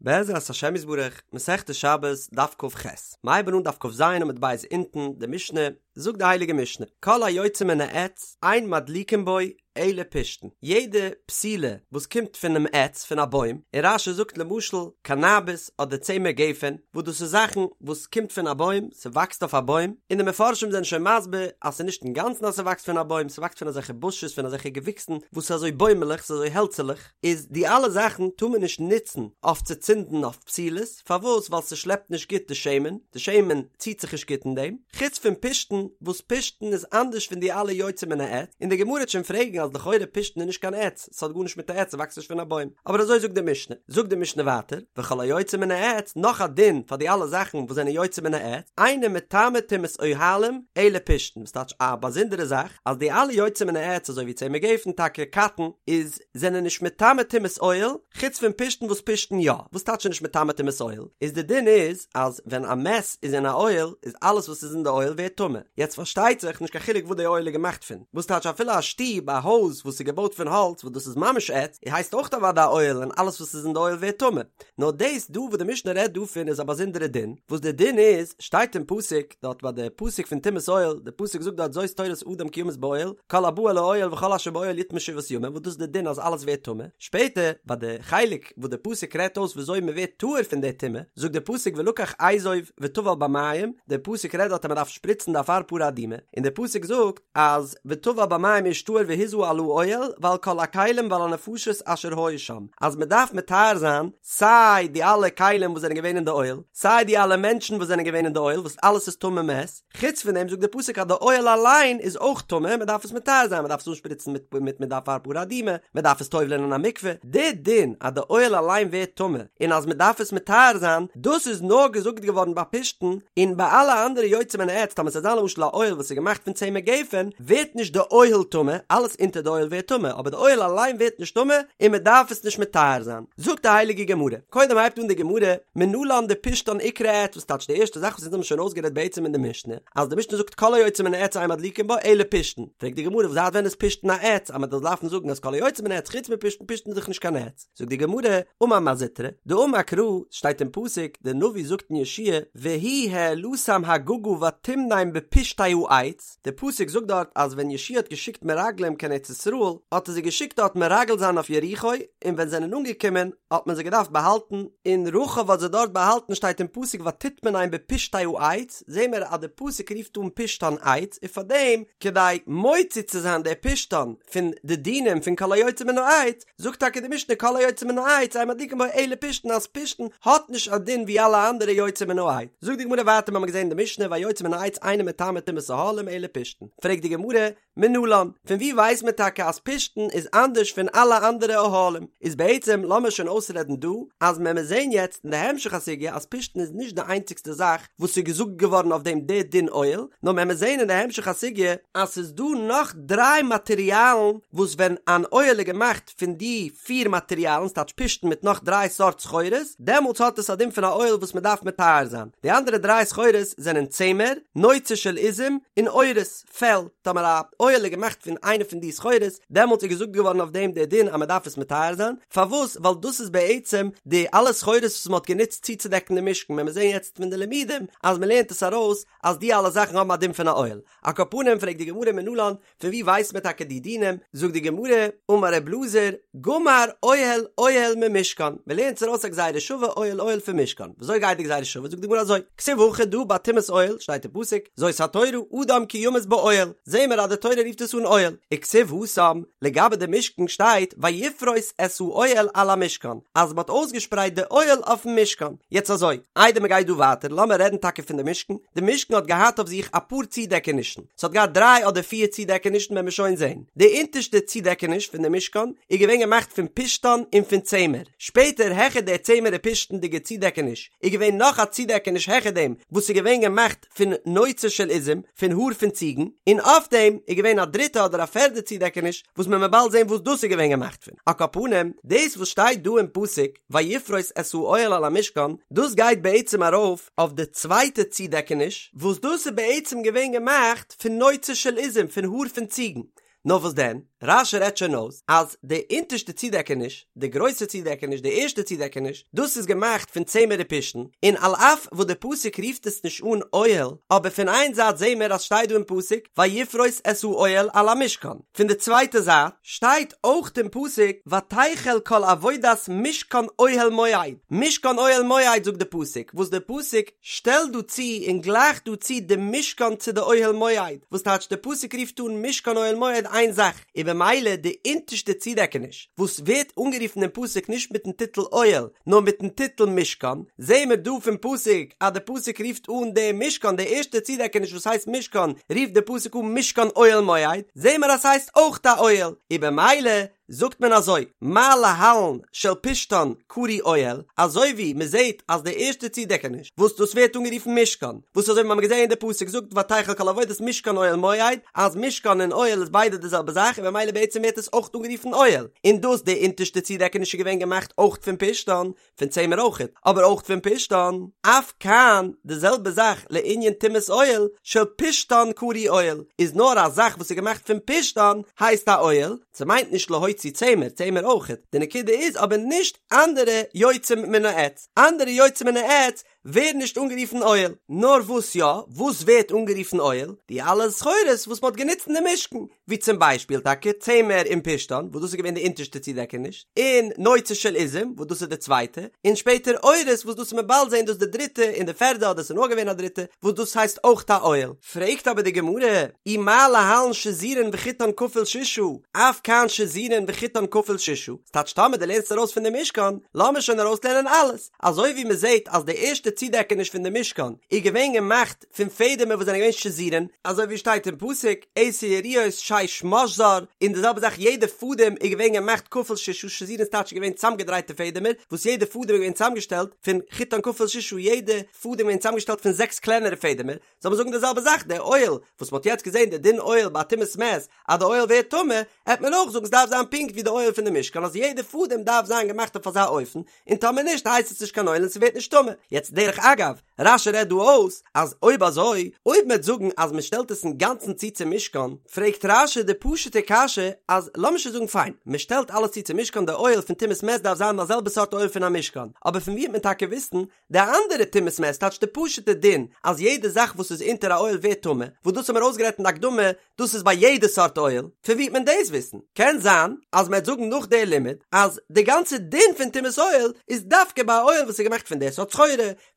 בעזרת השם יתברך, מסכת שבת, דף כ"ח. מ'הייבן אן דף כ"ז עמוד ב' אונטן, די משנה, זאגט די הייליגע משנה, כל היוצא מן העץ, אין מדליקין בו אלא פשתן, יעדע פתילה וואס קומט פונעם עץ, פון א בוים, און רש"י זאגט למשל קאנאביס אדער צמר גפן, וואס דאס איז זאכן וואס קומט פון א בוים, ס'וואקסט אויף א בוים, און די מפרשים זענען שוין מסביר אז ס'איז נישט אינגאנצן אז ס'וואקסט פון א בוים, ס'וואקסט פון אזעלכע בושעס, פון אזעלכע געוויקסן וואס איז אזוי בוימעלעך, ס'איז אזוי העלצעלעך. איז די אלע זאכן טאר מען נישט נוצן אויף צו צינדן אויף פתילות, פארוואס? ווייל ס'שלעפט נישט גוט די שמן, די שמן ציט זיך נישט גוט אין דעם, חוץ פון פשתן, וואס פשתן איז אנדערש פון די אלע יוצא מן העץ, און די גמרא וועט שוין פרעגן אז לכאורה פשתן איז נישט קיין עץ, ס'האט גארנישט מיט א עץ, ס'וואקסט נישט פון א בוים, אבער אזוי זאגט די משנה, זאגט די משנה ווייטער, וכל היוצא מן העץ, נאך א דין פאר די אלע זאכן וואס זענען יוצא מן העץ, אינו מטמא טומאת אוהלים, אלא פשתן, וואס טייטש א באזונדערע זאך, אז די אלע יוצא מן העץ אזוי ווי צמר גפן טאקע קאטן, איז זענען נישט מטמא טומאת אוהל, חוץ פון פשתן וואס פשתן יא, וואס טייטש נישט מטמא טומאת אוהל? איז די דין איז אז ווען א מת איז אין א אוהל איז אלעס וואס איז אין די אוהל ווערט טמא, יעצט פארשטייט זיך נישט קיין חילוק וואס די אוהל איז געמאכט פון, וואס טייטש אפילו א שטוב א הויז וואס איז געבויט פון האלץ וואס דאס איז ממש עץ, הייסט אויך אוודאי א אוהל און אלעס וואס איז אין די אוהל ווערט טמא, נאר דאס דא וואס די משנה רעדט דא פון איז א באזונדערע דין, וואס די דין איז שטייט אין פסוק דארט ביי די פסוק פון טומאת אוהל, די פסוק זאגט דארט זאת תורת אדם כי ימות באוהל, כל הבא אל האוהל וכל אשר באוהל יטמא שבעת ימים, וואס דאס איז די דין אז אלעס ווערט טמא, שפעטער ביי די חלק וואס די פסוק רעדט אויס וויאזוי מען ווערט טהור פון די טומאה, זאגט די פסוק ולקח אזוב וטבל במים, די פסוק רעדט דארט אז מען דארף שפריצן די אפר פרה אדומה, און די פסוק זאגט אז וטבל במים איש טהור והזה על האוהל ועל כל הכלים ועל הנפשות אשר היו שם, אז מען דארף מטהר זיין סיי די אלע כלים וואס זענען געווען אין די אוהל, סיי די אלע מענטשן וואס זענען געווען אין די אוהל וואס אלעס איזטמא מת, חוץ פון דעם זאגט די פסוק אז די אוהל אליין איז אויך טמא, מען דארף עס מטהר זיין, מען דארף עס אנשפריצן מיט מיט מיט די אפר פרה אדומה, מען דארף עס טובל'ען אין א מקווה, די דין אז די אוהל אליין ווערט טמא און אז מען דארף עס מטהר זיין, דאס איז נאר געזאגט געווארן ביי פשתן, און ביי אלע אנדערע יוצא מן העץ, טאמער ס'זאל זיין למשל א אוהל וואס איז געמאכט פון צמר גפן, ווערט נישט די אוהל טמא, אלעס אונטער די אוהל ווערט טמא, אבער די אוהל אליין ווערט נישט טמא און מען דארף עס נישט מטהר זיין. זאגט די הייליגע גמרא, קודם הייבט אן די גמרא, מנלן דפשתן איקרי עץ, וואס טייטש די ערשטע זאך וואס אונז האבן שוין אויסגערעדט בעצם אין די משנה, אז די משנה זאגט כל היוצא מן העץ אין מדליקין בו אלא פשתן, פרעגט די גמרא זייט ווען איז פשתן א עץ אז מען זאל דארפן זאגן אז כל היוצא מן העץ חוץ מפשתן, פשתן איז דאך נישט קיין עץ, זאגט די גמרא, אמר מר זוטרא, דאמר קרא, שטייט אין פסוק, די נביא זאגט אין יהושע, והוא העלתם הגגה ותמנם בפשתי העץ, די פסוק זאגט דארט אז ווען יהושע האט געשיקט מרגלים קיין ארץ ישראל האט ער זיי געשיקט דארט מרגל זיין אויף יריחו, און ווען זיי זענען אנגעקומען האט מען זיי געדארפט באהאלטן, און רחב האט זיי דארט באהאלטן שטייט אין פסוק ותטמנם בפשתי העץ, זעהן מיר אז די פסוק רופט אן פשתן עץ, און פארדעם כדי מוציא צו זיין די פשתן פון די דינים פון כל היוצא מן העץ, זאגט טאקע די משנה כל היוצא מן העץ אין מדליקין בו אלא פשתן אז פשתן האט נישט א דין ווי אלע אנדערע יוצא מן העץ. זאגט די גמרא ווייטער מ'האמיר געזען אין די משנה והיוצא מן העץ אינו מטמא טומאת אהלים אלא פשתן. פרעגט די גמרא, מנלן, פון ווי ווייסט מען טאקע אז פשתן איז אנדערש פון אלע אנדערע אוהלים? איז בעצם לאמיר שוין אויסרעדן דא אז מען מיר זען יעצט אין די המשך הסוגיא אז פשתן איז נישט די איינציגסטע זאך וואס איז געזאגט געווארן אויף דעם די דין אוהל, נאר מען מיר זען אין די המשך הסוגיא אז ס'איז דא נאך דריי מאטריאלן וואס ווען אן אוהל איז געמאכט פון די פיר מאטריאלן, ס'טייטש פשתן מיט נאך דריי סארט סחורות, דעמאלטס האט עס א דין פון א אוהל וואס מען דארף מטהר זיין. די אנדערע דריי סחורות זענען צמר, נוצה של עזים, און עורות, פעל. טאמער א אוהל איז געמאכט פון איינע פון די סחורות, דעמאלטס איז געזאגט געווארן אויף דעם דער דין אז מען דארף עס מטהר זיין. פארוואס? ווייל דאס איז בעצם די אלע סחורות וואס מען האט גענוצט צוצודעקן די משכן, ווען מיר זעען יעצט פון די לימודים אז מען לערנט עס ארויס אז די אלע זאכן האבן א דין פון א אוהל. על כל פנים פרעגט די גמרא מנלן, פון ווי ווייסט מען טאקע די דינים? זאגט די גמרא, אמר ר' אלעזר, גמר אוהל אוהל ממשכן, מען לערנט עס ארויס א גזירה שווה אוהל אוהל פון משכן, וויאזוי גייט די גזירה שווה? זאגט די גמרא אזוי, כתיב הכא דא ביי טומאת אוהל שטייט אין פסוק, זאת התורה אדם כי ימות באוהל, זעהן מיר אז די תורה רופט עס אן אוהל, וכתיב התם, לגבי די משכן שטייט ויפרוס את האוהל על המשכן, אז מען האט אויסגעשפרייט די אוהל אויפן משכן, יעצט אזוי, איידער מען גייט דא ווייטער לאמיר רעדן טאקע פון די משכן, די משכן האט געהאט אויף זיך אפאר צודעקענישן, ס'האט געהאט דריי אדער פיר צודעקענישן וועלן מיר שוין זעהן. די אונטערשטע צודעקעניש פון די משכן איז געווען געמאכט פון פשתן און פון צמר. שפעטער העכער דער צמר און פשתנ'דיגע צודעקעניש איז געווען נאך א צודעקעניש העכער דעם וואס איז געווען געמאכט פון נוצה של עזים, פון האר פון ציגן, און אויף דעם איז געווען א דריטע אדער א פערדע צודעקעניש וואס מען וועט באלד זעהן וואס דאס איז געווען געמאכט פון. על כל פנים, דאס וואס שטייט דא אין פסוק ויפרוס את האוהל על המשכן, דאס גייט בעצם ארויף אויף די צווייטע צודעקעניש, וואס דאס איז בעצם געווען געמאכט פון נוצה של עזים, פון האר פון ציגן. נאר וואס דען, רש"י רעדט שוין אויס אז די אונטערשטע צודעקעניש, די גרויסע צודעקעניש, די ערשטע צודעקעניש, דאס איז געמאכט פון צמר ופשתן, און על אף וואס די פסוק רופט עס נישט אן אוהל, אבער פון איין זייט זעהן מיר אז שטייט דא אין פסוק ויפרוס את האוהל על המשכן, פון די צווייטע זייט שטייט אויך אין פסוק ותחל כל עבודת משכן אוהל מועד, משכן אוהל מועד זאגט די פסוק, וואס די פסוק שטעלט דא צו און גלייכט דא צו די משכן צו די אוהל מועד, וואס טייטש די פסוק רופט אן משכן אוהל מועד איין זאך, און במילא די אונטערשטע צודעקעניש וואס ווערט אנגערופן אין פסוק נישט מיטן טיטל אוהל נאר מיטן טיטל משכן, זעהן מיר דא פון פסוק אז די פסוק רופט אן די משכן די ערשטע צודעקעניש וואס הייסט משכן רופט די פסוק אן משכן אוהל מועד, זעהן מיר אז ס'הייסט אויך א אוהל, און במילא זאגט מען אזוי, מה להלן של פשתן קרוי אוהל, אזוי ווי מען זעט אז די ערשטע צודעקעניש וואס דאס ווערט אנגערופן משכן, וואס אזוי ווי מיר האבן געזען אין די פסוק זאגט ותחל כל עבודת משכן אוהל מועד, אז משכן און אוהל איז ביידע די זעלבע זאך און במילא בעצם ווערט עס אויך אנגערופן אוהל, און דאס די אונטערשטע צודעקעניש איז געווען געמאכט אויך פון פשתן, פון צמר אויכעט, אבער אויך פון פשתן, אף כאן, די זעלבע זאך לענין טומאת אוהל, של פשתן קרוי אוהל, איז נאר א זאך וואס איז געמאכט פון פשתן הייסט א אוהל, ס'מיינט נישט להוציא צמר, צמר אויכעט, די נקודה איז אבער נישט אנדערע יוצאים מן העץ, אנדערע יוצאים מן העץ ווערן נישט אנגערופן אוהל, נאר וואס יא, וואס ווערט אנגערופן אוהל? די אלע סחורות וואס מ'האט גענוצט אין די משכן, ווי צום ביישפיל טאקע צמר און פשתן, וואס דאס איז געווען די אונטערשטע צודעקעניש, און נוצה של עזים, וואס דאס איז די צווייטע, און שפעטער עורות, וואס דאס מ'עט באלד זען דאס די דריטע און די פערדע אדער ס'איז נאר געווען א דריטע, וואס דאס הייסט אויך א אוהל. פרעגט אבער די גמרא, אי מה להלן שזורין וחוטן כפול ששה, אף כאן שזורין וחוטן כפול ששה, ס'טייטש טאמער דו לערנסט ארויס פון די משכן, לאמיר שוין ארויסלערנען אלעס, אזוי ווי מ'זעט אז די ערשטע צודעקעניש פון די משכן איז געווען געמאכט פון פעדעמער וואס זענען געווען שזורין, אזוי ווי שטייט אין פסוק, עשר יריעות שש משזר, און די זעלבע זאך יעדע פאדעם איז געווען געמאכט כפול ששה, שזורין איז טייטש געווען צאמגעדרייטע פעדעמער, וואס יעדע פאדעם איז געווען צאמגעשטעלט פון חוטן כפול ששה, יעדע פאדעם איז געווען צאמגעשטעלט פון זעקס קלענערע פעדעמער, זאל מען זאגן די זעלבע זאך די אוהל וואס מ'האט יעצט געזען די דין אוהל ביי טומאת מת אז די אוהל ווערט טמא, העט מען אויך זאגן ס'דארף זיין פונקט ווי די אוהל פון די משכן אז יעדע פאדעם דארף זיין געמאכט אויף אזא אופן, און טאמער נישט הייסט עס נישט קיין אוהל און ס'ווערט נישט טמא. יעצט דרך אגב, רש"י רעדט דא אויס אז אויב אזוי, אויב מ'עט זאגן אז מ'שטעלט עס אינגאנצן צו צום משכן, פרעגט רש"י די פשוט'ע קשיא אז לאמיר שוין זאגן פיין, מ'שטעלט אלעס צו צום משכן די אוהל פון טומאת מת דארף זיין די זעלבע סארט אוהל פון א משכן, אבער פון ווי העט מען טאקע וויסן די אנדערע טומאת מת טייטש די פשוט'ע דין אז יעדע זאך וואס איז אונטער א אוהל ווערט טמא, וואס דאס האבן מיר אויסגערעדט אין די הקדמה, דאס איז ביי יעדע סארט אוהל, פון ווי וועט מען דאס וויסן? קען זיין אז מען וועט זאגן נאך די לימוד אז די גאנצע דין פון טומאת אוהל איז דווקא ביי א אוהל וואס איז געמאכט פון די סארט סחורה,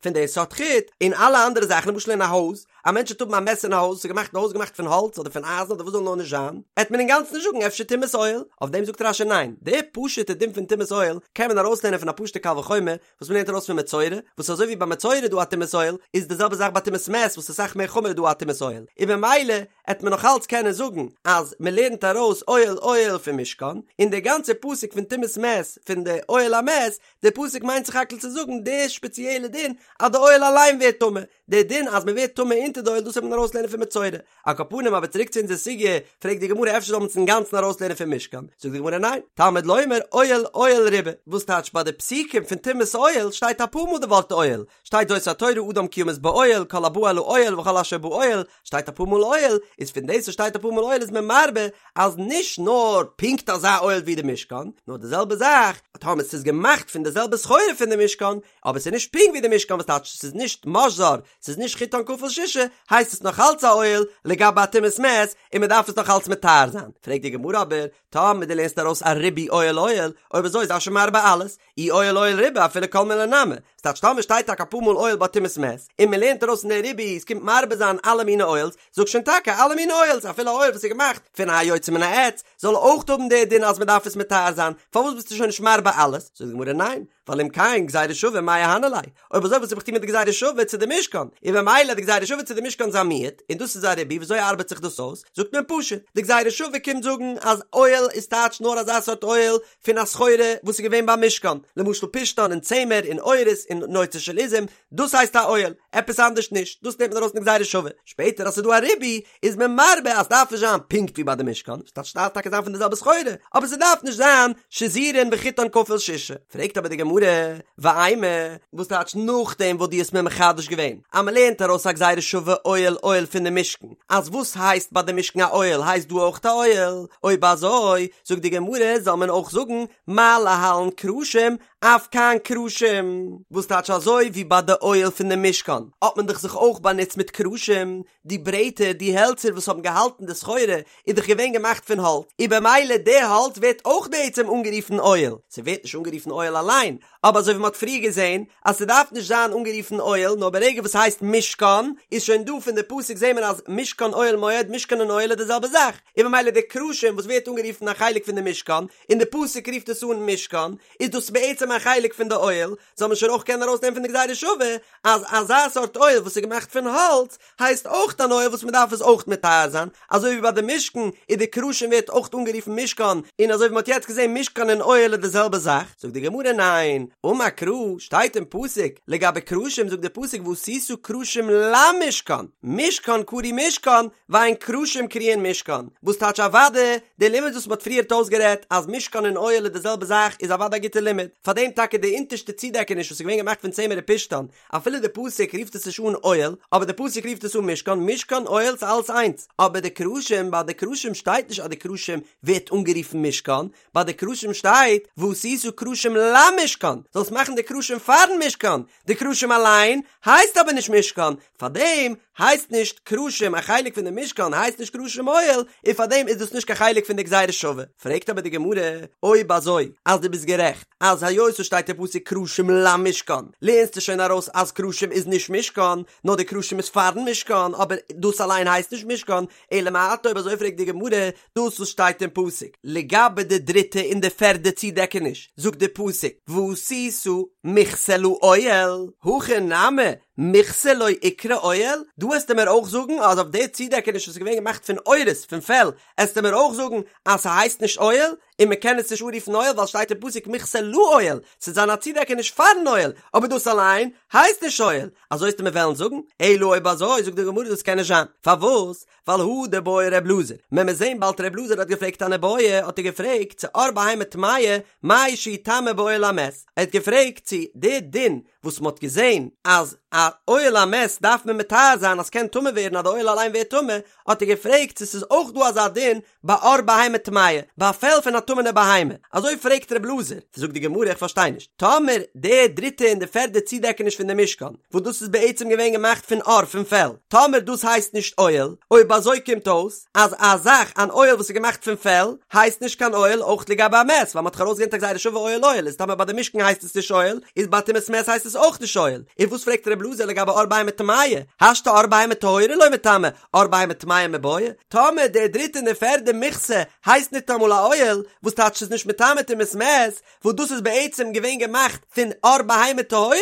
פון די סארט חוט, און אלע אנדערע זאכן למשל אין א הויז, א מענטש וועט האבן א מת אין א הויז, ס'איז געמאכט די הויז געמאכט פון האלץ אדער פון אייזן אדער וואס זאל נאר נישט זיין, עט מען אינגאנצן נישט זאגן אפשר טומאת אוהל, אויף דעם זאגט רש"י ניין, די פשוט'ע דין פון טומאת אוהל קען מען ארויסלערנען פון א פשוט'ע קל וחומר, וואס מ'לערנט ארויס פון מצורע, וואס אזוי ווי ביי מצורע איז דא א טומאת אוהל, איז די זעלבע זאך ביי טומאת מת וואס איז אסאך מער חמור איז דא א טומאת אוהל, און במילא עט מען נאך אלץ קענען זאגן אז מ'לערנט ארויס אוהל אוהל פון משכן, און די גאנצע פסוק פון טומאת מת פון די אוהל המת, די פסוק מיינט סך הכל צו זאגן די שפעציעלע דין אז די אוהל אליין ווערט טמא, די דין אז מען ווערט טמא אונטער די אוהל דאס וועט מען ארויסלערנען פון מצורע. על כל פנים אבער צוריק צו אונזער סוגיא, פרעגט די גמרא אפשר זאל מען עס אינגאנצן ארויסלערנען פון משכן, זאגט די גמרא ניין, תלמוד לומר אוהל אוהל ריבה, וואס טייטש ביי די פסוקים פון טומאת אוהל שטייט אפאר מאל די ווארט אוהל, שטייט זאת התורה אדם כי ימות באוהל כל הבא אל האוהל וכל אשר באוהל, שטייט אפאר מאל אוהל, איז פון דאס וואס שטייט אפאר מאל אוהל איז מען מרבה אז נישט נאר פונקט אזא אוהל ווי די משכן, נאר די זעלבע זאך טאמער ס'איז געמאכט פון די זעלבע סחורה פון די משכן, אבער ס'איז נישט פונקט ווי די משכן וואס טייטש ס'איז נישט משזר, ס'איז נישט חוטן כפול ששה, הייסט עס נאך אלץ א אוהל לגבי א טומאת מת, און מ'דארף עס נאך אלץ מטהר זיין. פרעגט די גמרא אבער, טאמער דו לערנסט ארויס א ריבוי אוהל אוהל, אויב אזוי זיי שוין מרבה אלעס, אי אוהל אוהל ריבה אפילו כל מילי נמי, ס'טייטש טאמער שטייט טאקע אפאר מאל אוהל ביי טומאת מת, און מ'לערנט ארויס אין די ריבוי ס'קומט מרבה זיין אלע מיני אוהלס, זאג שוין טאקע אלע מיני אוהלס אפילו א אוהל וואס איז געמאכט פון א יוצא מן העץ זאל אויך האבן די דין אז מ'דארף עס מטהר זיין, פארוואס ביסטו שוין נישט מרבה אלעס? זאגט די גמרא ניין, ווייל אם כן גזירה שווה מאי אהני ליה, אויב אזוי וואס האב איך טון מיט די גזירה שווה צו די משכן, און במילא די גזירה שווה צו די משכן איז א מיעוט, און דאס איז א ריבוי, וויאזוי ארבעט זיך דאס אויס? זאגט מען פשוט, די גזירה שווה קומט זאגן אז אוהל איז טייטש נאר אזא סארט אוהל פון א סחורה וואס איז געווען ביים משכן, למשל פשתן און צמר און עורות און נוצה של עזים, דאס הייסט א אוהל, עפעס אנדערש נישט, דאס נעמט מען ארויס אין די גזירה שווה, שפעטער אז ס'איז דא א ריבוי איז מען מרבה אז ס'דארף נישט זיין פונקט ווי ביי די משכן, ס'טייטש ס'דארף טאקע זיין פון די זעלבע סחורה, אבער ס'דארף נישט זיין שזורין וחוטן כפול ששה. פרעגט אבער די גמרא. גמרא, ואימא, וואס טייטש נאכדעם וואס דו האסט מיר מחדש געווען אז מען לערנט ארויס א גזירה שווה אוהל אוהל פון די משכן, אז וואס הייסט ביי די משכן א אוהל הייסט דא אויך א אוהל, אויב אזוי זאגט די גמרא זאל מען אויך זאגן מה להלן קרשים אף כאן קרשים, וואס טייטש אזוי ווי ביי די אוהל פון די משכן האט מען דאך זיך אויך באנוצט מיט קרשים, די ברעטער, די העלצער וואס האבן געהאלטן די סחורה איז דאך געווען געמאכט פון האלץ, און במילא די האלץ ווערט אויך בעצם אנגערופן אוהל, ס'ווערט נישט אנגערופן אוהל אליין, אבער אזוי ווי מ'האט פריער געזען אז ס'דארף נישט זיין אנגערופן אוהל נאר ברגע וואס ס'הייסט משכן איז שוין דא פון די פסוק זעהן מיר אז משכן אוהל מועד משכן און אוהל איז די זעלבע זאך, און במילא די קרשים וואס ווערט אנגערופן א חלק פון די משכן און די פסוק רופט עס אן משכן איז דאס בעצם א חלק פון די אוהל, זאל מען שוין אויך קענען ארויסנעמען פון די גזירה שווה אז אזא סארט אוהל וואס איז געמאכט פון האלץ הייסט אויך אן אוהל וואס מען דארף עס אויך מטהר זיין, אזוי ווי ביי די משכן איז די קרשים ווערט אויך אנגערופן משכן, און אזוי ווי מען האט יעצט געזען משכן און אוהל איז די זעלבע זאך, זאגט די גמרא ניין, אמר קרא, שטייט אין פסוק לגבי קרשים זאגט די פסוק ועשית קרשים למשכן, משכן קרוי משכן, ואין קרשים קרויין משכן, וואס טייטש אוודאי, די לימוד וואס מען האט פריערט אויסגערעדט אז משכן און אוהל איז די זעלבע זאך איז אוודאי א גוטע לימוד, פארדעם טאקע די אונטערשטע צודעקעניש וואס איז געווען געמאכט פון צמר ופשתן, אפילו די פסוק רופט עס נישט אן אוהל, אבער די פסוק רופט עס אן משכן, משכן אוהל ס'איז אלעס איינס, אבער די קרשים, ביי די קרשים שטייט נישט אז די קרשים ווערט אנגערופן משכן, ביי די קרשים שטייט ועשית קרשים למשכן, זאלסט מאכן די קרשים פארן משכן, די קרשים אליין הייסט אבער נישט משכן, פארדעם הייסט נישט קרשים א חלק פון די משכן הייסט נישט קרשים אוהל, און פארדעם איז דאס נישט קיין חלק פון די גזירה שווה. פרעגט אבער די גמרא, אויב אזוי אז דו ביסט גערעכט אז היות עס שטייט אין פסוק קרשים למשכן לערנסטו שוין ארויס אז קרשים איז נישט משכן, נאר די קרשים איז פארן משכן, אבער דאס אליין הייסט נישט משכן, אלא מעתה אויב אזוי פרעגט די גמרא, דאס וואס שטייט אין פסוק לגבי די דריטע און די פערדע צודעקעניש, זאגט די פסוק ועשית מכסה לאוהל, הכא נמי מכסה לא איקרי אוהל, דא עסטו מיר אויך זאגן אז אויף די צודעקעניש וואס איז געווען געמאכט פון עורות, פון פעל, עסטו מיר אויך זאגן אז ס'הייסט נישט אוהל, און מ'קען עס נישט אנרופן אוהל ווייל שטייט אין פסוק מכסה לאוהל, ס'זאל זיין א צודעקעניש פארן אוהל, אבער דאס אליין הייסט נישט אוהל, אזוי עסטו מיר וועלן זאגן? אלא אויב אזוי זאגט די גמרא דאס קען נישט זיין, פארוואס? ווייל הא דבעי ר' אלעזר, מען מוז זעהן באלד ר' אלעזר האט געפרעגט אן איבעיא, האט ער געפרעגט צו עור בהמה טמאה, מהו שיטמא באוהל המת, ער האט געפרעגט צו די דין וואס מען האט געזעהן אז א אוהל המת דארף מען מטהר זיין אז ס'קען טמא ווערן אז די אוהל אליין ווערט טמא, האט ער געפרעגט צו ס'איז אויך דא אזא דין ביי עור בהמה טמאה, ביי א פעל פון א טמא'נע בהמה, אזוי פרעגט ר' אלעזר, זאגט די גמרא איך פארשטיי נישט, טאמער די דריטע און די פערדע צודעקעניש פון די משכן, וואס דאס איז בעצם געווען געמאכט פון עור פון פעל, טאמער דאס הייסט נישט אוהל, אויב אזוי קומט אויס אז א זאך אן אוהל וואס איז געמאכט פון פעל הייסט נישט קיין אוהל אויך לגבי א מת, ווייל מען האט דאך ארויסגעלערנט א גזירה שווה אוהל אוהל, איז טאמער ביי די משכן הייסט עס נישט אוהל, איז ביי טומאת מת הייסט עס אויך נישט אוהל, און וואס פרעגט ר' אלעזר לגבי עור בהמה טמאה, השתא עור בהמה טהורה לא מיטמא, עור בהמה טמאה מיבעיא, טאמער די דריטע און די פערדע מכסה הייסט ניטאמאל א אוהל, וואס טייטש ס'איז נישט מטמא טומאת מת, וואס דאס איז בעצם געווען געמאכט פון עור בהמה טהורה,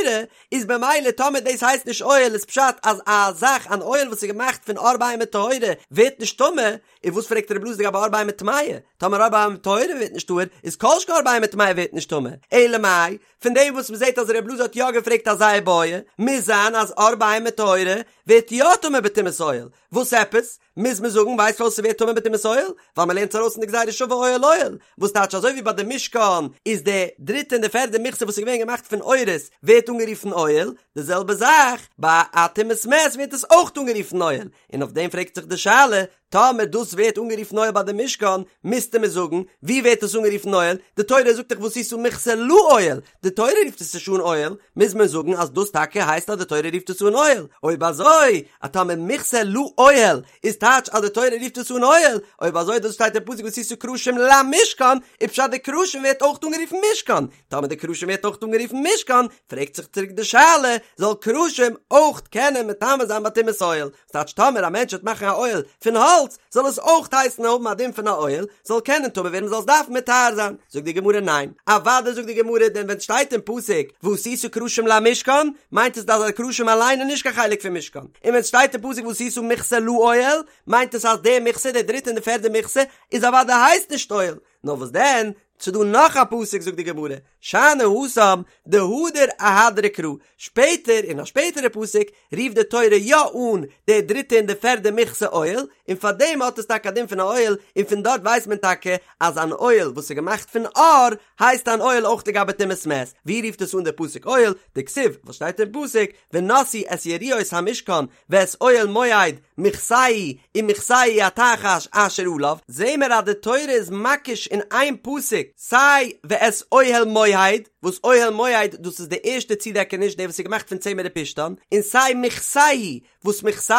איז במילא טאמער דאס הייסט נישט אוהל איז פשט אז א זאך אן אוהל וואס איז געמאכט פון עור בהמה טהורה ווערט נישט טמא, און וואס פרעגט רב אלעזר לגבי עור בהמה טמאה, טאמער עור בהמה טהורה ווערט נישט טהור, איז כל שכן עור בהמה טמאה ווערט נישט טמא, אלא מאי, פון דעם וואס מ'זעט אז רב אלעזר האט יא געפרעגט אזא איבעיא, מוז זיין אז עור בהמה טהורה ווערט יא טמא בטומאת אוהל, וואס עפעס? מוז מען זאגן ווייסט פארוואס ס'ווערט טמא בטומאת אוהל? ווייל מ'לערנט עס ארויס אין די גזירה שווה אוהל אוהל, וואס טייטש אזוי ווי ביי די משכן איז די דריטע און די פערדע מכסה וואס איז געווען געמאכט פון עורות ווערט אנגערופן אוהל, די זעלבע זאך ביי א טומאת מת ווערט עס אויך אנגערופן אוהל, און אויף דעם פרעגט זיך די שאלה, טאמער דאס ווערט אנגערופן אוהל ביי די משכן, מוזטו מיר זאגן, ווי ווערט עס אנגערופן אוהל? די תורה זאגט דאך ועשית מכסה לאוהל, די תורה רופט עס נישט אן אוהל, מוז מען זאגן אז דאס טאקע הייסט אז די תורה רופט עס אן אוהל, אויב אזוי, אז טאמער מכסה לאוהל איז טייטש אז די תורה רופט עס אן אוהל, אויב אזוי דאס שטייט אין פסוק ועשית קרשים למשכן, איז פשט די קרשים ווערט אויך אנגערופן משכן, טאמער די קרשים ווערט אויך אנגערופן משכן, פרעגט זיך צוריק די שאלה, זאל קרשים אויך קענען מטמא זיין ביי טומאת אוהל? ס'טייטש טאמער א מענטש וועט מאכן א אוהל פון האלץ, זאל עס אויך הייסן האבן א דין פון א אוהל, זאל קענען טמא ווערן מ'זאל עס דארפן מטהר זיין. זאגט די גמרא ניין, אוודאי זאגט די גמרא דען ווען ס'שטייט אין פסוק ועשית קרשים למשכן, מיינט עס אז די קרשים אליין איז נישט קיין חלק פון משכן, און ווען ס'שטייט אין פסוק ועשית מכסה לאוהל, מיינט עס אז די מכסה, די דריטע און די פערדע מכסה, איז אוודאי הייסט נישט אוהל, נאר וואס דען? ס'דא נאך א פסוק זאגט די גמרא, שאני התם דהדר אהדריה קרא, שפעטער אין א שפעטערע פסוק רופט די תורה יא אן די דריטע און די פערדע מכסה אוהל, און פאר דעם האט עס טאקע א דין פון א אוהל, און פון דארט ווייסט מען טאקע אז אן אוהל וואס איז געמאכט פון עור הייסט אן אוהל אויך לגבי טומאת מת, ווי רופט עס אן די פסוק אוהל? דכתיב, וואס שטייט אין פסוק, ונשאו את יריעות המשכן ואת אוהל מועד מכסהו ומכסהו התחש אשר עליו, זעהן מיר אז די תורה איז מקיש אין איין פסוק סיי ואת אוהל מועד, וואס אוהל מועד דאס איז די ערשטע צודעקעניש די וואס איז געמאכט פון צמר ופשתן, און סיי מכסהו וואס מכסהו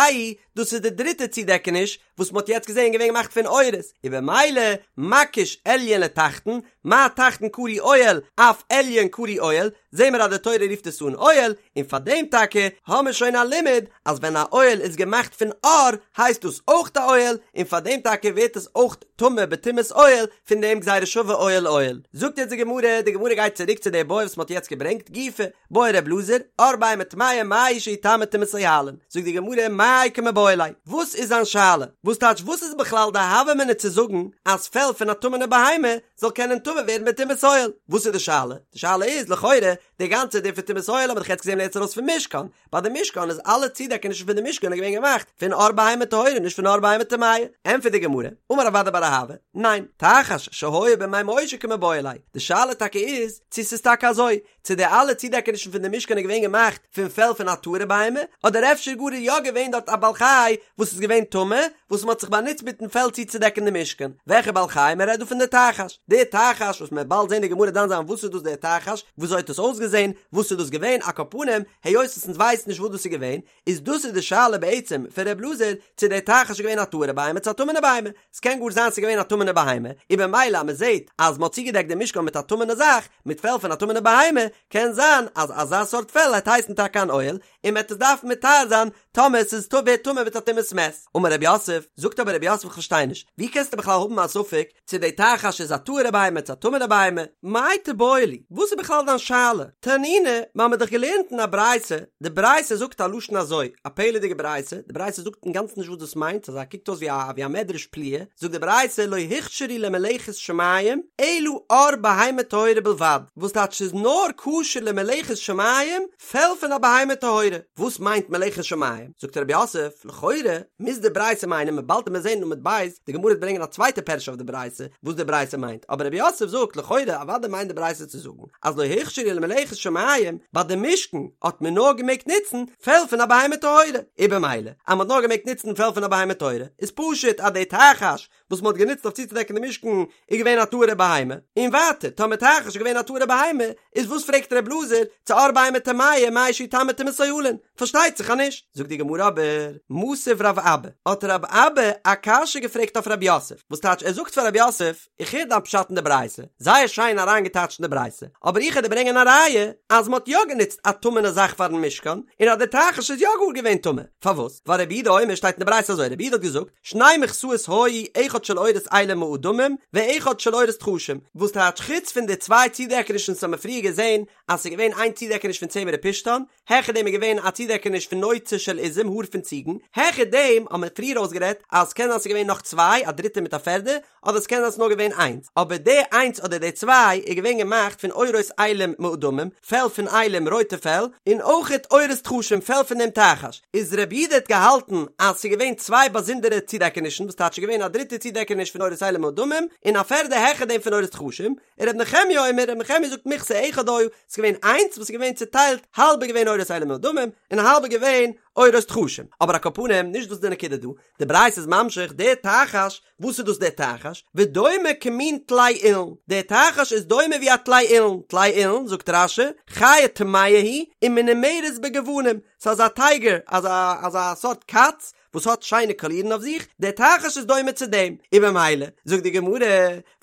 דאס איז די דריטע צודעקעניש וואס מ'האט יעצט געזעהן געווען געמאכט פון עורות, און במילא מקיש עליון לתחתון, מה תחתון קרוי אוהל אף עליון קרוי אוהל, זעהן מיר אז די תורה רופט עס אן אוהל, און פאר דעם טאקע האמיר שוין א לימוד אז ווען א אוהל איז געמאכט פון עור הייסט דאס אויך א אוהל, און פאר דעם טאקע ווערט עס אויך טמא בטומאת אוהל, פון דעם גזירה שווה אוהל אוהל. זאגט יעצט די גמרא, די גמרא גייט צוריק צו די בעיא וואס מ'האט יעצט געברענגט, גופא, בעי ר' אלעזר, עור בהמה טמאה מהו שיטמא טומאת אוהלין, זאגט די גמרא מאי קמיבעיא ליה, וואס איז זיין שאלה? וואס טייטש וואס איז בכלל די הוה אמינא צו זאגן אז פעל פון א טמא'נע בהמה זאל קענען טמא ווערן בטומאת אוהל? וואס איז די שאלה? די שאלה איז לכאורה די גאנצע דין פון טומאת אוהל האט מען דאך יעצט געזען לערנט ארויס פון משכן, ביי די משכן איז אלע צודעקענישן פון די משכן איז געווען געמאכט פון עור בהמה טהורה נישט פון עור בהמה טמאה, ענטפערט די גמרא, אמר רב אדא בר אהבה, ניין, תחש שהיה בימי משה קמיבעיא ליה, די שאלה טאקע איז צו ס'איז טאקע אזוי, צו די אלע צודעקענישן פון די משכן איז געווען געמאכט פון פעל פון א טהור'ע בהמה, אדער אפשר גאר איז יא געווען דארט א בעל חי וואס איז געווען טמא, וואס מ'האט זיך באנוצט מיטן פעל צוצודעקן די משכן. וועלכע בעל חי? מ'רעדט דא פון די תחש. די תחש וואס מ'וועט באלד זען די גמרא דן זיין וואס איז דאס די תחש, וויאזוי האט עס אויסגעזען, וואס איז דאס געווען, על כל פנים, היות וואס אונז ווייסן נישט וואס דאס איז געווען, איז דאס איז די שאלה בעצם פון ר' אלעזר, צו די תחש איז געווען א טהור'ע בהמה צו א טמא'נע בהמה. ס'קען גאר זיין ס'איז געווען א טמא'נע בהמה, און במילא אז מ'זעט אז מ'האט צוגעדעקט די משכן מיט א טמא'נע זאך, מיט פעל פון א טמא'נע בהמה, קען זיין אז אזא סארט פעל העט הייסן טאקע אן אוהל, און מ'העט עס דארפן מטהר זיין טאמער ס'איז טמא ווערט טמא מיט א טומאת מת. אמר רב יוסף, זאגט אבער רב יוסף כ'פארשטיי נישט, ווי קענסטו בכלל האבן א ספק צו די תחש איז א טהור'ע בהמה צו א טמא'נע בהמה? מאי תיבעי ליה, וואס איז בכלל דיין שאלה? תנינא, מ'האמיר דאך געלערנט אין א ברייתא, די ברייתא זאגט א לשון אזוי, א פלא'דיגע ברייתא, די ברייתא זאגט אינגאנצן נישט וואס דאס מיינט, אזא קוקט אויס ווי א ווי א מדרש פליאה, זאגט די ברייתא לא הוכשרו למלאכת שמים אלא עור בהמה טהורה בלבד, וואס טייטש ס'איז נאר כשר למלאכת שמים פעל פון א בהמה טהורה, וואס מיינט מלאכת שמים? זאגט רב יוסף, לכאורה מוז די ברייתא מיינען מ'וועט באלד מיר זעהן אין עמוד ב', די גמרא וועט ברענגען א צווייטע פירוש אויף די ברייתא וואס די ברייתא מיינט, אבער רב יוסף זאגט לכאורה אוודאי מיינט די ברייתא צו זאגן אז לא הוכשרו למלאכת שמים, ביי די משכן האט מען נאר געמעגט נוצן פעל פון א בהמה טהורה, און במילא אז מען האט נאר געמעגט נוצן פעל פון א בהמה טהורה איז פשוט אז די תחש וואס מען האט גענוצט אויף צוצודעקן די משכן איז געווען א טהור'ע בהמה, און ווייטער טאמער תחש איז געווען א טהור'ע בהמה איז וואס פרעגט ר' אלעזר צו עור בהמה טמאה מהו שיטמא טומאת אוהלין, פארשטייט זיך אז נישט. זאגט די גמרא אבער, מתיב רב אבא, האט רב אבא א קשיא געפרעגט אויף רב יוסף, וואס טייטש ער זאגט פאר רב יוסף, איך הער דיין פשט אין די ברייתא, זייער שיין אריינגעטייטשט אין די ברייתא, אבער איך העט דיר ברענגען א ראיה אז מ'האט יא גענוצט א טמא'נע זאך פאר'ן משכן, און אז דער תחש איז יא גאר געווען טמא. פארוואס? ווייל רבי יהודה אומר שטייט אין די ברייתא אזוי, רבי יהודה האט געזאגט, שני מכסאות היו אחד של עורות אילים מאדמים ואחד של עורות תחשים, וואס טייטש חוץ פון די צוויי צודעקענישן וואס האמיר פריער געזען אז ס'איז געווען איין צודעקעניש פון צמר ופשתן, העכער דעם איז געווען א צודעקעניש פון נוצה של עזים, האר פון ציגן, העכער דעם האבן מיר פריער אויסגערעדט אז ס'קען זיין ס'איז געווען נאך צוויי, א דריטע מיט א פערדע, אדער ס'קען זיין ס'איז נאר געווען איינס, אבער די איינס אדער די צוויי איז געווען געמאכט פון עורות אילים מאדמים, פעל פון אילים, רויטע פעל, און אויכעט עורות תחשים, פעל פון דעם תחש. איז רבי יהודה האט געהאלטן אז ס'איז געווען צוויי באזונדערע צודעקענישן, וואס טייטש ס'איז געווען א דריטע צודעקעניש פון עורות אילים מאדמים, און א פערדע העכער דעם פון עורות תחשים, און רבי נחמיה אומר, רבי נחמיה זאגט מכסה אחד היה, ס'איז געווען איינס וואס איז געווען צוטיילט, האלב איז געווען עורות אילים מאדמים, און האלב איז געווען עורות תחשים. אבער על כל פנים, נישט דאס איז די נקודה דא, די ברייתא איז ממשיך, דער תחש, וואס איז דאס דער תחש? ודומה כמין טלה אילן, דער תחש איז דומה ווי א טלה אילן, טלה אילן, זאגט רש"י, חיה טמאה היא, ומנומרת בגוונים, ס'איז אזא טייגער, אזא אזא סארט קאץ, וואס האט שיינע קאלירן אויף זיך, דער תחש איז דומה צו דעם, און במילא, זאגט די גמרא,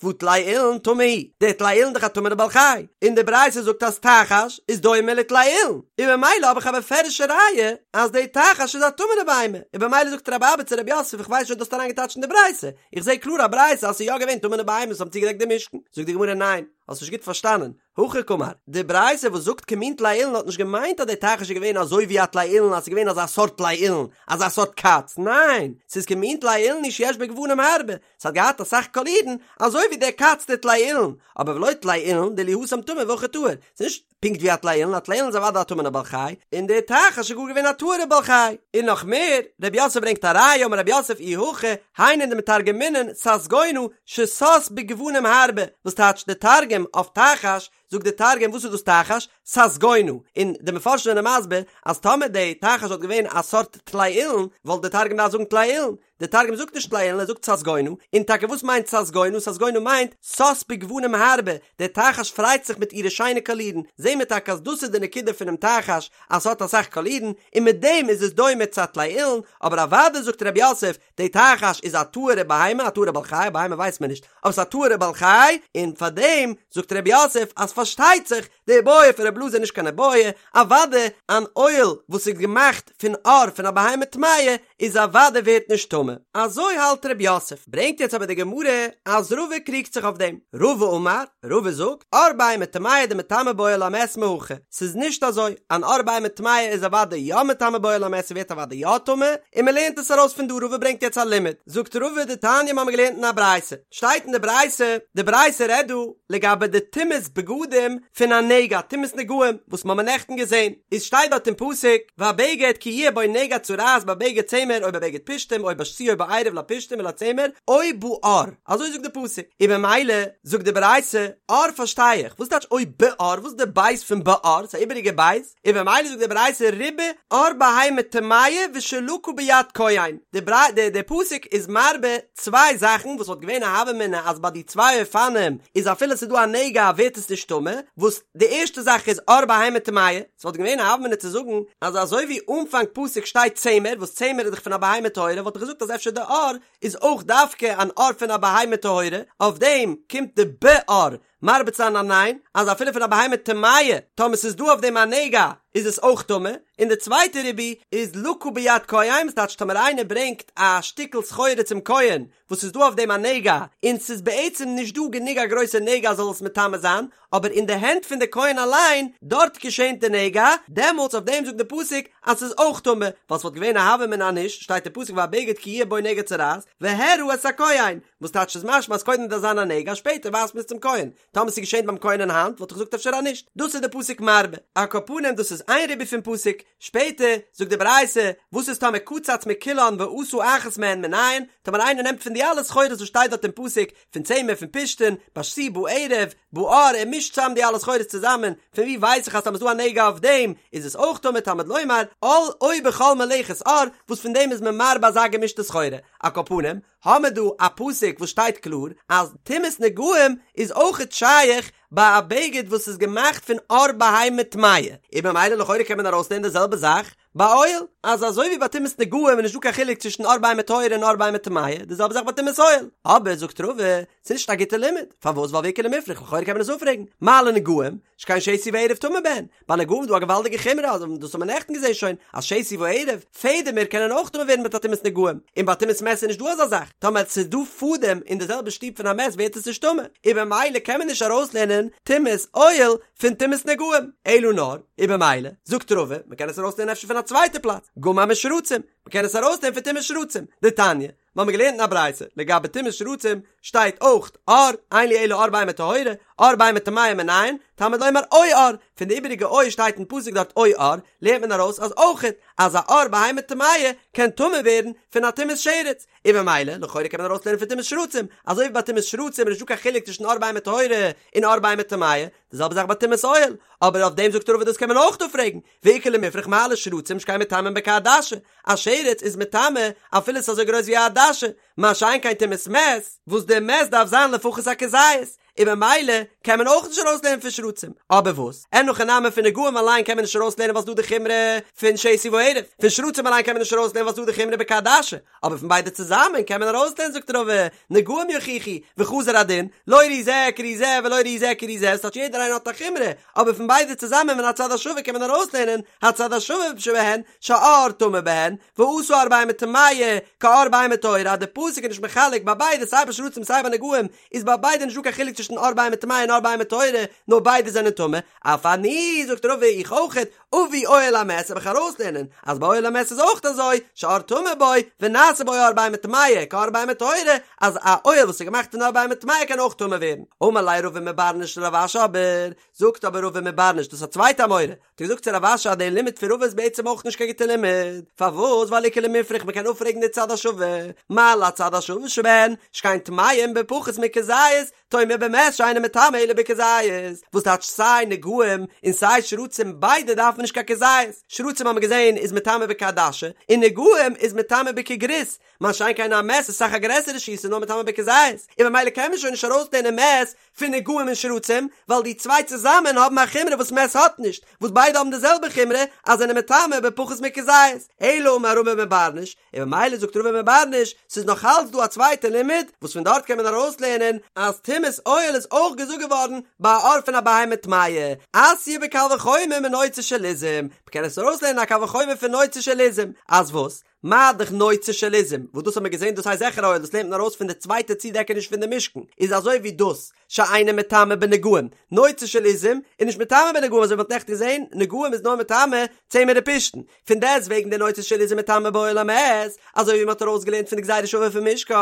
והא טלה אילן טמא הוא, דער טלה אילן איז דאך א טמא'נע בעל חי, און די ברייתא זאגט אז תחש איז דומה לטלה אילן, און במילא האב איך א בפירוש'ע ראיה אז דער תחש איז א טמא'נע בהמה, און במילא זאגט רב אבא צו רב יוסף איך ווייס נישט ווי דו האסט אריינגעטייטשט אין די ברייתא, איך זע קלאר א ברייתא אז ס'איז יא געווען טמא'נע בהמות וואס האבן צוגעדעקט די משכן, זאגט די גמרא ניין. האסט נישט גוט פארשטאנען, הכי קאמר, די ברייתא וואס זאגט כמין טלאי אילן האט נישט געמיינט אז די תחש איז געווען אזוי ווי א טלאי אילן אז ס'איז געווען אזא סארט טלאי אילן, אזא סארט קאץ, ניין, ס'איז כמין טלאי אילן הוא שיש בו גוונים הרבה, ס'האט געהאט אסאך קאלירן, אזוי ווי דער קאץ די טלאי אילן, אבער ולא טלאי אילן דאילו התם טמא והכא טהור, ס'איז נישט פונקט ווי א טלאי אילן, א טלאי אילן איז אוודאי א טמא'נע בעל חי, און דער תחש איז גאר געווען א טהור'ע בעל חי. און נאך מער, רב יוסף ברענגט א ראיה, אמר רב יוסף אי הכי, היינו דמתרגמינן ססגונא ששש בגוונים הרבה, וואס טייטש די תרגום אויף תחש, זאגט די תרגום וואס איז דאס תחש? ססגונא, און די מפרשים זענען מסביר אז טאמער די תחש וואלט געווען א סארט טלאי אילן, וואלט די תרגום געדארפט זאגן טלאי אילן, די תרגום זאגט נישט טלאי אילן ער זאגט ססגונא, און טאקע וואס מיינט ססגונא? ססגונא מיינט שש בגוונים הרבה, דער תחש פרייט זיך מיט אירע שיינע קאלירן, זעהן מיר טאקע אז דאס איז די נקודה פונעם תחש אז ס'האט אסאך קאלירן, און מיט דעם איז עס דומה צו א טלאי אילן, אבער אוודאי זאגט רב יוסף, די תחש איז א טהור'ע בהמה, א טהור'ע בעל חי, א בהמה ווייסט מען נישט, אבער ס'איז א טהור'ע בעל חי, און פארדעם זאגט רב יוסף אז פארשטייט זיך, די איבעיא פון רב אלעזר איז נישט קיין איבעיא, אוודאי אן אוהל וואס איז געמאכט פון עור פון א בהמה טמאה איז אוודאי ווערט נישט טמא. אזוי האלט רב יוסף. ברענגט יעצט אבער די גמרא אז רבא קריגט זיך אויף דעם. רבא אמר, רבא זאגט, עור בהמה טמאה דמטמא באוהל המת מהכא, ס'איז נישט אזוי, אן עור בהמה טמאה איז אוודאי יא מטמא באוהל המת ס'ווערט אוודאי יא טמא, און מ'לערנט עס ארויס פון דא, רבא ברענגט יעצט א לימוד, זאגט רבא דתניא מ'האמיר געלערנט אין א ברייתא, שטייט אין די ברייתא, די ברייתא רעדט דא לגבי די טומאת בגדים פון א נגע, טומאת נגעים, וואס מ'האמיר נעכטן געזען, איז שטייט דארט אין פסוק, והבגד כי יהיה בו נגע צרעת בבגד צמר או בבגד פשתים או בשתי או בערב לפשתים ולצמר או בעור, אזוי זאגט די פסוק, און במילא זאגט די ברייתא, עור פארשטיי איך, וואס טייטש או בעור, וואס איז די בית פון בעור, ס'איז א איבעריגע בית, און במילא זאגט די ברייתא ריבה עור בהמה טמאה ושלקה ביד כהן, די די די פסוק איז מרבה צוויי זאכן וואס וואלט געווען א הוה אמינא אז ביי די צוויי אופנים איז אפילו ס'איז דא א נגע ווערט עס נישט טמא, וואס די ערשטע זאך איז עור בהמה טמאה, ס'וואלט געווען א הוה אמינא צו זאגן אז אזוי ווי אנפאנג פסוק שטייט צמר וואס צמר איז דאך פון א בהמה טהורה וואלט איך געזאגט אז אפשר די עור איז אויך דווקא אן עור פון א בהמה טהורה, אויף דעם קומט די בעור מרבה צו זיין א ניין, אז אפילו פון א בהמה טמאה, טאמער ס'איז דא אויף דעם א נגע, איז עס אויך טמא, און די צווייטע ריבוי איז לקה ביד כהן, וואס טייטש טאמער איינער ברענגט א שטיקל סחורה צום כהן וואס איז דא אויף דעם א נגע, און ס'איז בעצם נישט דא גענוג א גרויסע נגע זאל עס מטמא זיין, אבער אין די הענט פון די כהן אליין, דארט געשענט די נגע, דעמאלטס אויף דעם זאגט די פסוק אז ס'איז אויך טמא, ווייל ס'וואלט געווען א הוה אמינא אז נישט, שטייט אין פסוק והבגד כי יהיה בו נגע צרעת, והראה את הכהן, וואס טייטש איז משמע אז קודם דארף זיין א נגע שפעטער ווייזט מען עס צום כהן, טאמער ס'איז געשען ביים כהן אין האנט וואלט איך געזאגט אפשר אז נישט, דאס איז די פסוק מרבה, על כל פנים דאס איז איין ריבוי פון פסוק, שפעטער זאגט די ברייתא וואס איז טאמער קצץ מכולן ועשה אחת מהן מנין, טאמער איינער נעמט פון די אלע סחורות וואס שטייט דארט אין פסוק, פון צמר פון פשתן, בשתי בערב, בעור, ער מישט צאם די אלע סחורות צוזאמען, פון ווי ווייס איך אז טאמער איז דא א נגע אויף דעם איז עס אויך טמא תלמוד לומר, על או בכל מלאכת עור, וואס פון דעם איז מען מרבה אזא געמישטע סחורה, על כל פנים, האמער דא א פסוק וואס שטייט קלאר אז טומאת נגעים איז אויכעט שייך ביי א בגד וואס איז געמאכט פון עור בהמה טמאה, און במילא לכאורה קען מען ארויסלערנען די זעלבע זאך ביי אוהל, אז אזוי ווי ביי טומאת נגעים איז נישטא קיין חילוק צווישן עור בהמה טהורה און עור בהמה טמאה, די זעלבע זאך ביי טומאת אוהל. אבער זאגט רבא, ס'איז נישט א גוטע לימוד, פארוואס ווייל ואיכא למיפרך לכאורה קען מען עס אפפרעגן, מה לנגעים, שכן שתי וערב טמא בהן, ביי נגעים איז דא א געוואלדיגע חומרא, אז דאס האט מען נעכטן געזען שוין, אז שתי וערב, פעדעמער קענען אויך טמא ווערן מיט א טומאת נגעים, און ביי טומאת מת איז נישט דא אזא זאך, טאמער ס'איז דא פאדעם אין די זעלבע שטוב פון א מת ווערט עס נישט טמא, און במילא קען מען נישט ארויסלערנען טומאת אוהל פון טומאת נגעים, אלא נאר, און במילא, זאגט רבא, מ'קען עס ארויסלערנען אפשר פון א צווייטע פלאץ, גמר משרצים, מ'קען עס ארויסלערנען פון טומאת שרצים, דתניא, מיר האבן געלערנט אין א ברייתא, לגבי טומאת שרצים שטייט אויך עור, אין לי אלא עור בהמה טהורה, עור בהמה טמאה מנין, תלמוד לומר או עור, פון די איבעריגע או שטייט אין פסוק דארט או עור, לערנט מען ארויס אז אויכעט אז א עור בהמה טמאה קען טמא ווערן פון א טומאת שרץ, און ממילא לכאורה קען מען ארויסלערנען פון טומאת שרצים, אזוי ווי ביי טומאת שרצים איז נישטא קיין חילוק צווישן עור בהמה טהורה און עור בהמה טמאה, די זעלבע זאך ביי טומאת אוהל, אבער אויף דעם זאגט רבא דאס קען מען אויך אפפרעגן, ואיכא למיפרך מה לשרצים שכן מטמאין בכעדשה, א שרץ איז מטמא אפילו ס'איז אזוי גרויס ווי א עדשה, מה שאין כן טומאת מת, וואס די מת דארף זיין לפחות א כזית, און ממילא קען מען אויך נישט ארויסלערנען פון שרצים, אבער וואס? אין הכי נמי פון נגעים אליין קען מען נישט ארויסלערנען ווייל ס'דא די חומרא פון שתי וערב, פון שרצים אליין קען מען נישט ארויסלערנען ווייל ס'דא די חומרא בכעדשה, אבער פון ביידע צוזאמען קען מען ארויסלערנען זאגט רבא, נגעים יוכיחו, וחזר הדין, לא ראי זה כראי זה ולא ראי זה כראי זה, ס'טייטש יעדער איינער האט א חומרא, אבער פון ביידע צוזאמען מן הצד השווה קען מען ארויסלערנען, הצד השווה שבהן, שהעור טמא בהן, ועשה עור בהמה טמאה, כעור בהמה טהורה, אז די פסוק איז נישט מחלק ביי ביידע סיי ביי שרצים סיי ביי נגעים, איז ביי ביידע נישטא קיין חילוק צווישן. צווישן עור בהמה טמאה און עור בהמה טהורה, נאר ביידע זענען טמא, אף אני, זאגט רבא איך אויכעט, אביא אוהל המת וועל איך ארויסלערנען אז ביי אוהל המת איז אויך אזוי, שעור טמא בו, ונעשה בו עור בהמה טמאה, כעור בהמה טהורה, אז א אוהל וואס איז געמאכט פון עור בהמה טמאה קען אויך טמא ווערן. אמר ליה רבא מבר נש לרב אשי אבער, זאגט אבער רבא מבר נש, דאס איז א צווייטע אמורא, האט ער געזאגט צו רב אשי אז דער לימוד פון רבא איז בעצם אויך נישט קיין גוטע לימוד, פארוואס? ווייל איכא למיפרך מען קען אפפרעגן די צד השווה, מה להצד השווה שבהן, שכן טמאים בפחות מכזית, תאמר במת שאינו מטמא אלא בכזית, וואס טייטש סיי נגעים און סיי שרצים ביידע דארפן נישט קיין כזית, שרצים האבן מיר געזען איז מטמא בכעדשה, און נגעים איז מטמא בכגריס, מה שאין כן א מת איז אסאך א גרעסערע שיעור ס'איז נאר מטמא בכזית, און ממילא קען מען שוין נישט ארויסלערנען מת פון נגעים און שרצים, ווייל די צוויי צוזאמען האבן א חומרא וואס מת האט נישט, וואס ביידע האבן די זעלבע חומרא אז זענען מטמא בפחות מכזית, אלא אמר רבא מבר נש, און ממילא זאגט רבא מבר נש, ס'איז נאך אלץ דא א צווייטע לימוד, וואס פון דארט קען מען ארויסלערנען אז טומאת אוהל איז אויך געזאגט געווארן ביי א עור פון א בהמה טמאה, אתיא בקל וחומר מנוצה של עזים, מ'קען עס ארויסלערנען א קל וחומר פון נוצה של עזים, אז וואס? מה דאך נוצה של עזים, וואס דאס האט מען געזען דאס הייסט זיכער אוהל, דאס לערנט מען ארויס פון די צווייטע צודעקעניש פון די משכן, איז אזוי ווי דאס שאינו מטמא בנגעים, נוצה של עזים איז נישט מטמא בנגעים אזוי ווי מ'האט נעכטן געזען, נגעים איז נאר מטמא צמר ופשתן, פון דעסט וועגן די נוצה של עזים מטמא באוהל המת, אזוי ווי מ'האט ארויסגעלערנט פון די גזירה שווה פון משכן,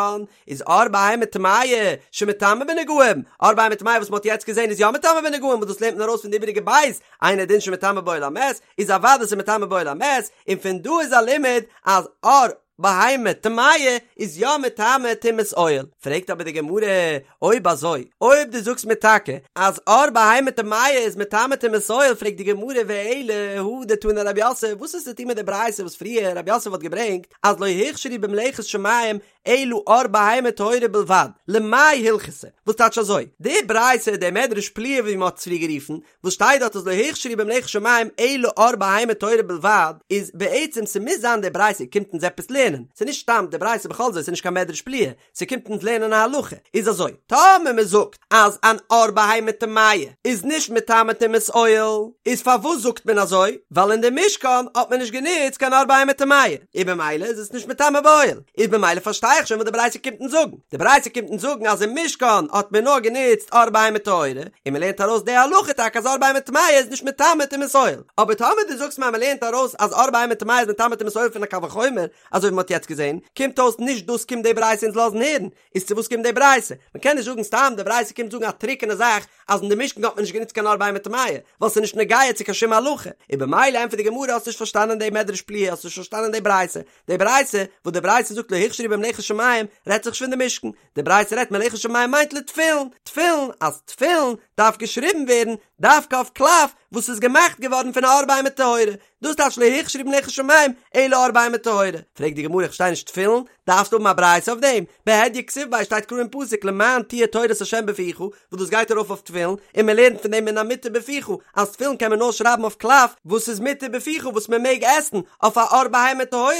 איז עור בהמה טמאה שמטמא בנגעים, עור בהמה טמאה וואס מ'האט יעצט געזען איז יא מטמא בנגעים וואס דאס לערנט מען ארויס פון די איבעריגע בית, אינו דין שמטמא באוהל המת, איז אוודאי ס'איז מטמא באוהל המת, און פון דא איז א לימוד אז עור בהמה טמאה איז יא מטמא טומאת אוהל. פרעגט אבער די גמרא, אויב אזוי, אויב דו זאגסט מיר טאקע אז עור בהמה טמאה איז מטמא טומאת אוהל, פרעגט די גמרא ואלא הא דתני רב יוסף, וואס איז צו טון מיט די ברייתא וואס פריער רב יוסף האט געברענגט אז לא הוכשרו במלאכת שמים אלא עור בהמה טהורה בלבד, למאי הלכתא? וואס טייטש אזוי? די ברייתא, די מדרש פליאה ווי מען האט עס פריער גערופן, וואס שטייט דארט אז לא הוכשרו במלאכת שמים אלא עור בהמה טהורה בלבד, איז בעצם ס'מוז זיין די ברייתא קומט אונז עפעס לערנען, ס'איז נישט סתם די ברייתא בכל זאת ס'איז נישט קיין מדרש פליאה, ס'קומט אונז לערנען א הלכה, איז אזוי, טאמער מ'זאגט אז אן עור בהמה טמאה איז נישט מטמא טומאת אוהל, איז פארוואס זאגט מען אזוי? ווייל אין די משכן האט מען נישט גענוצט קיין עור בהמה טמאה, און במילא איז עס נישט מטמא באוהל, איז במילא פארשטיי איך שוין וואס די ברייתא קומט אונז זאגן, די ברייתא קומט אונז זאגן אז אין משכן האט מען נאר גענוצט עור בהמה טהורה, און מען לערנט ארויס די הלכה טאקע אז עור בהמה טמאה איז נישט מטמא טומאת אוהל, אבער טאמער דו זאגסט מיר אז מען לערנט ארויס אז עור בהמה טמאה איז מטמא טומאת אוהל פון א קל וחומר, אזוי ווי מען האט יעצט געזען, קומט אויס נישט דאס קומט די ברייתא אונז לאזן הערן, איז צו וואס קומט די ברייתא? מען קען נישט זאגן סתם די ברייתא קומט זאגן א טרוקענע זאך אז אין די משכן האט מען נישט גענוצט קיין עור בהמה טמאה, ווייל ס'איז נישט נוגע צו קיין שום הלכה, און במילא ענטפערט די גמרא האסט נישט פארשטאנען די מדרש פליאה האסט נישט פארשטאנען די ברייתא, די ברייתא וואס די ברייתא זאגט לא הוכשרו במלאכת שמים רעדט זיך נישט פון די משכן, די ברייתא רעדט מלאכת שמים מיינט לתפילין, תפילין, אז תפילין דארף געשריבן ווערן דווקא אויף קלף וואס איז געמאכט געווארן פון א עור בהמה טהורה, דאס טייטש לא הוכשרו במלאכת שמים אלא עור בהמה טהורה. פרעגט די גמרא איך פארשטיי נישט תפילין דארפסטו האבן א ברייתא אויף דעם? בהדיא כתיב ביה שטייט קלאר אין פסוק למען תהיה תורת ה' בפיך וואס דאס גייט ארויף אויף תפילין און מען לערנט פון דעם מן המותר בפיך אז תפילין קען מען נאר שרייבן אויף קלף וואס איז מותר בפיך וואס מען מעג עסן אויף א עור בהמה טהורה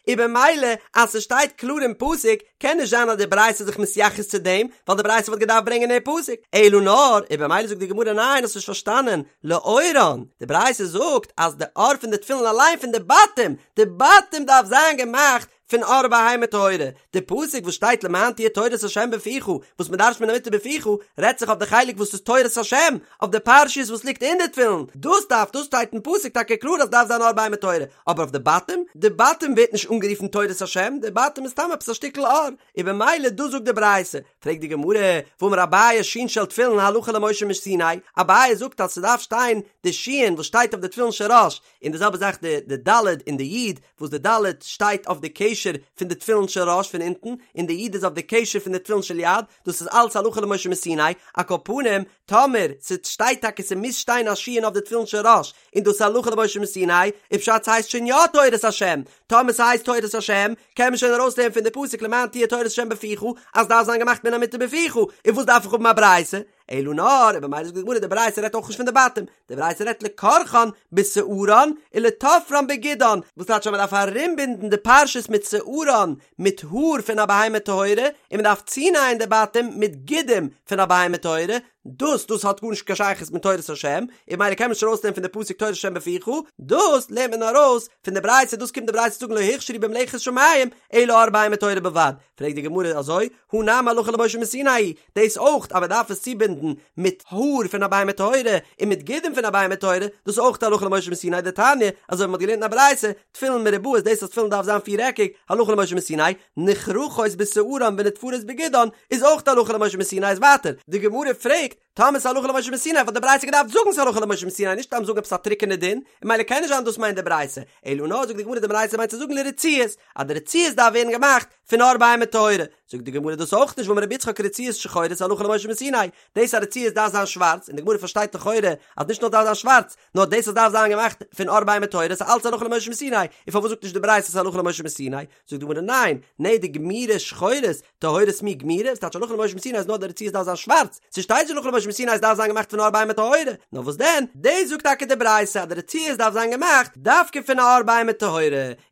און במילא אז ס'שטייט קלאר אין פסוק קען נישט זיין אז די ברייתא איז זיך מתייחס צו דעם ווייל די ברייתא וואלט געדארפט ברענגען די פסוק אלא נאר און במילא זאגט די גמרא ניין האסט נישט פארשטאנען לעורן די ברייתא זאגט אז די עור פון די תפילין אליין פון די בתים די בתים דארף זיין געמאכט פון עור בהמה טהורה, די פסוק וואס שטייט למען תהיה תורת ה' בפיך, וואס מען דרש'נט מן המותר בפיך, רעדט זיך אויף די חלק וואס איז תורת השם, אויף די פרשיות וואס ליגט אין די תפילין, דאס דארף, דאס שטייט אין פסוק טאקע קלאר אז דארף זיין עור בהמה טהורה, אבער אויף די בתים, די בתים ווערט נישט אנגערופן תורת השם, די בתים איז סתם עפעס א שטיקל עור, און במילא דאס זאגט די ברייתא, פרעגט די גמרא, והאמר אביי שין של תפילין הלכה למשה מסיני, אביי זאגט אז ס'דארף שטיין די שין וואס שטייט אויף די תפילין של ראש, און די זעלבע זאך די די ד' און די י', וואס די ד' שטייט אויף די קשר פון די תפילין של ראש פון אונטן, און די י' איז אויף די קשר פון די תפילין של יד, דאס איז אלץ הלכה למשה מסיני, על כל פנים, טאמער ס'שטייט טאקע ס'מוז שטיין א שין אויף די תפילין של ראש, און דאס איז הלכה למשה מסיני, איז פשט ס'הייסט שוין יא תורת השם, טאמער ס'הייסט תורת השם, קען מען שוין ארויסלערנען פון די פסוק למען תהיה תורת השם בפיך, אז דארף זיין געמאכט מן המותר בפיך, און וואס דארף איך האבן א ברייתא? אלא נאר, און במילא זאגט די גמרא די ברייתא רעדט אויך נישט פון די בתים, די ברייתא רעדט לכורכן בשערן ולתופרן בגידן, וואס טייטש אז מען דארף ארומבינדן די פרשיות מיט שערן, מיט האר פון א בהמה טהורה, און מען דארף צונייען די בתים מיט גידים פון א בהמה טהורה, דאס דאס האט גארנישט קיין שייכות מיט תורת השם, און ממילא קען מען נישט ארויסלערנען פון די פסוק תורת השם בפיך, דאס לערנט מען ארויס פון די ברייתא, דאס קומט די ברייתא זאגן לא הוכשרו במלאכת שמים אלא עור בהמה טהורה בלבד, פרעגט די גמרא אזוי, הא נמי הלכה למשה מסיני, דאס אויך אז מען דארף עס צובינדן מיט האר פון א בהמה טהורה און מיט גידים פון א בהמה טהורה, דאס איז אויך הלכה למשה מסיני דתניא, אזוי ווי מען האט געלערנט אין א ברייתא, תפילין מרובעות דאס אז תפילין דארף זיין פיר עקיג, הלכה למשה מסיני, נכרכות בשערן ונתפרות בגידן, איז אויך הלכה למשה מסיני איז ווייטער, די גמרא פרעגט, טאמער ס'איז הלכה למשה מסיני וואלט די ברייתא געדארפט זאגן ס'איז הלכה למשה מסיני נישט סתם זאגן עפעס א טרוקענע דין, און ממילא קען נישט זיין דאס מיינט די ברייתא, אלא נאר זאגט די גמרא די ברייתא מיינט צו זאגן לרצועות, אז די רצועות דארף ווערן געמאכט פון עור בהמה טהורה, זאגט די גמרא דאס אויך נישט והאמר רבי יצחק רצועות שחורות הלכה למשה מסיני, דאס אז רצועות דארף זיין שווארץ, און די גמרא פארשטייט לכאורה אז נישט נאר דארף זיין שווארץ, נאר דאס אז דארף זיין געמאכט פון עור בהמה טהורה איז אלץ הלכה למשה מסיני, און פארוואס זאגט נישט די ברייתא ס'איז הלכה למשה מסיני? זאגט די גמרא ניין, נהי דגמירי שחורות, טהורות מי גמירי, ס'טייטש הלכה למשה מסיני אז נאר די רצועות דארף זיין שווארץ, ס'שטייט נישט הלכה למשה מסיני אז דארף זיין געמאכט פון עור בהמה טהורה, נאר וואס דען, דאס זאגט טאקע די ברייתא אז די רצועות דארף זיין געמאכט דווקא פון א עור בהמה טהורה,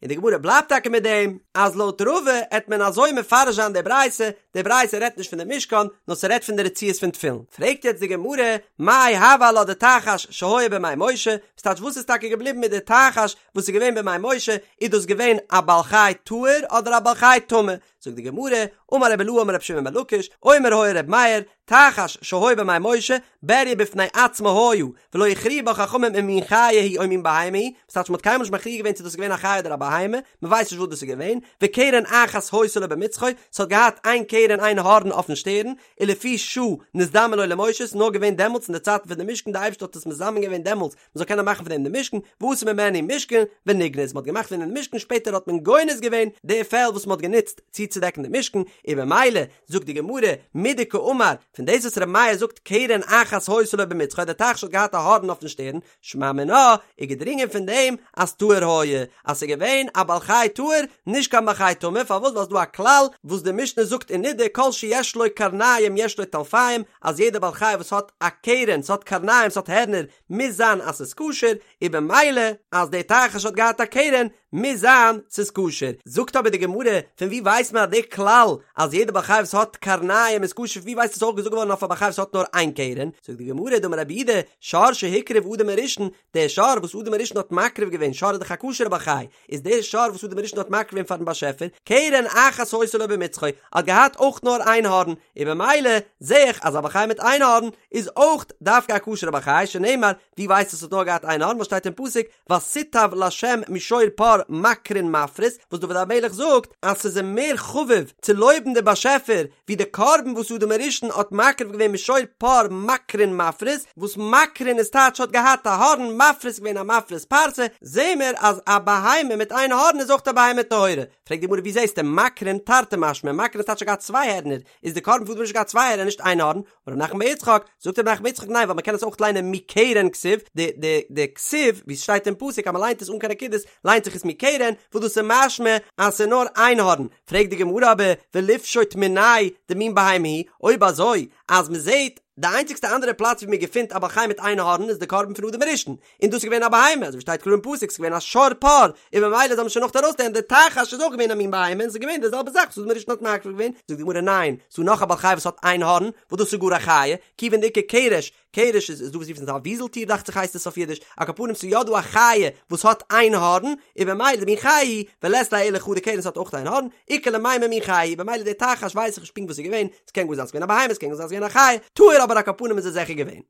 און די גמרא בלייבט טאקע מיט דעם אז לויט רבא עט מען אזוי מפרש זיין די ברייתא, די ברייתא רעדט נישט פון די משכן, נאר ס'רעדט פון די רצועות פון תפילין. פרעגט יעצט די גמרא, מאי הוה עלה דתחש שהיה בימי משה, וואס טייטש וואס איז טאקע געבליבן מיט די תחש וואס איז געווען בימי משה, איז דאס געווען א בעל חי טהור אדער א בעל חי טמא? זאגט די גמרא, אמר רבי אילעא אמר רבי שמעון בן לקיש, אומר היה ר' מאיר, תחש שהיה בימי משה, בריה בפני עצמה היה, ולא הכריעו בה חכמים אם מין חיה היא או מין בהמה היא, וואס טייטש מ'האט קיינמאל נישט מכריע געווען צו דאס איז געווען א חיה אדער א בהמה, מ'ווייסט נישט וואס דאס איז געווען, וקרן אחת היתה לו במצחו, ס'האט געהאט איין קרן איין הארן אויפן שטערן, ולפי שעה נזדמן לו למשה, ס'איז נאר געווען דעמאלטס אין די צייטן פון די משכן, די אייבערשטער האט עס מזמן געווען דעמאלטס מ'זאל קענען מאכן פון דעם די משכן, ועשו ממנו משכן, ונגנז, מ'האט געמאכט פון דעם די משכן, שפעטער האט מען גונז געווען די פעל וואס מ'האט גענוצט צוצודעקן די משכן, און במילא, זאגט די גמרא, מדקאמר, פון דאס וואס ר' מאיר זאגט קרן אחת היתה לו במצחו, דער תחש האט געהאט א הארן אויפן שטערן, שמע מינה, איז געדרינגען פון דעם אז טהור היה, אז ס'איז געווען א בעל חי טהור, נישט קיין בעל חי טמא, פארוואס ווייל ס'איז דא א כלל וואס די משנה זאגט אין נדה כל שיש לו קרניים יש לו טלפיים, אז יעדע בעל חי וואס האט א קרן, ס'האט קרניים, ס'האט הערנער, מוז זיין אז ס'איז כשר, און במילא אז דער תחש האט געהאט א קרן, מוז זיין ס'איז כשר. זאגט אבער די גמרא, פון וואו ווייסט מען אז די כלל אז יעדע בעל חי וואס האט קרניים איז כשר, פון וואו ווייסט עס אויך געזאגט געווארן אויף א בעל חי וואס האט נאר איין קרן? זאגט די גמרא, דאמר רב יהודה, שור שהקריב אדם הראשון, דער שור וואס אדם הראשון האט מקריב געווען, שור איז דאך א כשר'ע בעל חי, איז דער שור וואס אדם הראשון האט מקריב געווען פארן באשעפער, קרן אחת היתה לו במצחו, האט געהאט אויך נאר איין הארן, און במילא זע איך אז א בעל חי מיט איין הארן איז אויך דווקא א כשר'ע בעל חי, שנאמר, ווי ווייסטו עס האט נאר געהאט איין הארן, וואס שטייט אין פסוק, ותיטב לה' משור פר מקרין מפריס, וואס דוד המלך זאגט אז ס'איז אים מער חביב צו לויבן די באשעפער ווי די קרבן וואס אדם הראשון האט מקריב געווען משור פר מקרין מפריס, וואס מקרין איז טייטש האט געהאט א הארן, מפריס איז געווען א מפריס פרסה, זעהן מיר אז א בהמה מיט איין הארן איז אויך א בהמה טהורה. פרעגט די גמרא ווי זעהסטו מקרין תרתי משמע, מקרין איז טייטש האט געהאט צוויי הערנער, איז די קרבן פון אדם הראשון האט געהאט צוויי הערנער נישט איין הארן, אמר רב נחמן בר יצחק, זאגט רב נחמן בר יצחק ניין ווייל מ'קען עס אויך ליינען מקרן כתיב, די די די כתיב ווי ס'שטייט אין פסוק אז מ'ליינט עס אן קיין נקודות ליינט זיך עס מקרן, וואס דאס איז משמע אז ס'איז נאר איין הארן, פרעגט די גמרא אבער וליפשוט מיניה דמין בהמה היא, אויב אזוי אז מ'זעהט די איינציגסטע אנדערע פלאץ ווי מ'געפינט א בעל חי מיט איין הארן איז די קרבן פון אדם הראשון, און דאס איז געווען א בהמה, אזוי ווי שטייט קלאר אין פסוק, ס'איז געווען א שור פר, און ממילא זאל מען שוין נאך ארויסלערנען די תחש איז אויך געווען א מין בהמה און ס'איז געווען די זעלבע זאך וואס אדם הראשון האט מקריב געווען, זאגט די גמרא ניין, ס'דא נאך א בעל חי וואס האט איין הארן, וואס דאס איז גאר א חיה, כיוון דאיכא קרש, קרש איז איז דא וואס רופן עס א וויזל טיר דאכט זיך הייסט עס אויף אידיש, על כל פנים ס'איז יא דא א חיה וואס האט איין הארן, און במילא דמין חיה היא, ולית ליה אלא חדא קרן ס'האט אויך איין הארן, איכא למימר מין חיה היא, במילא די תחש ווייס איך נישט פונקט וואס ס'איז געווען, ס'קען גאר זיין ס'איז געווען א בהמה ס'קען גאר זיין ס'איז געווען א חיה, טהור אבער על כל פנים איז עס זיכער געווען.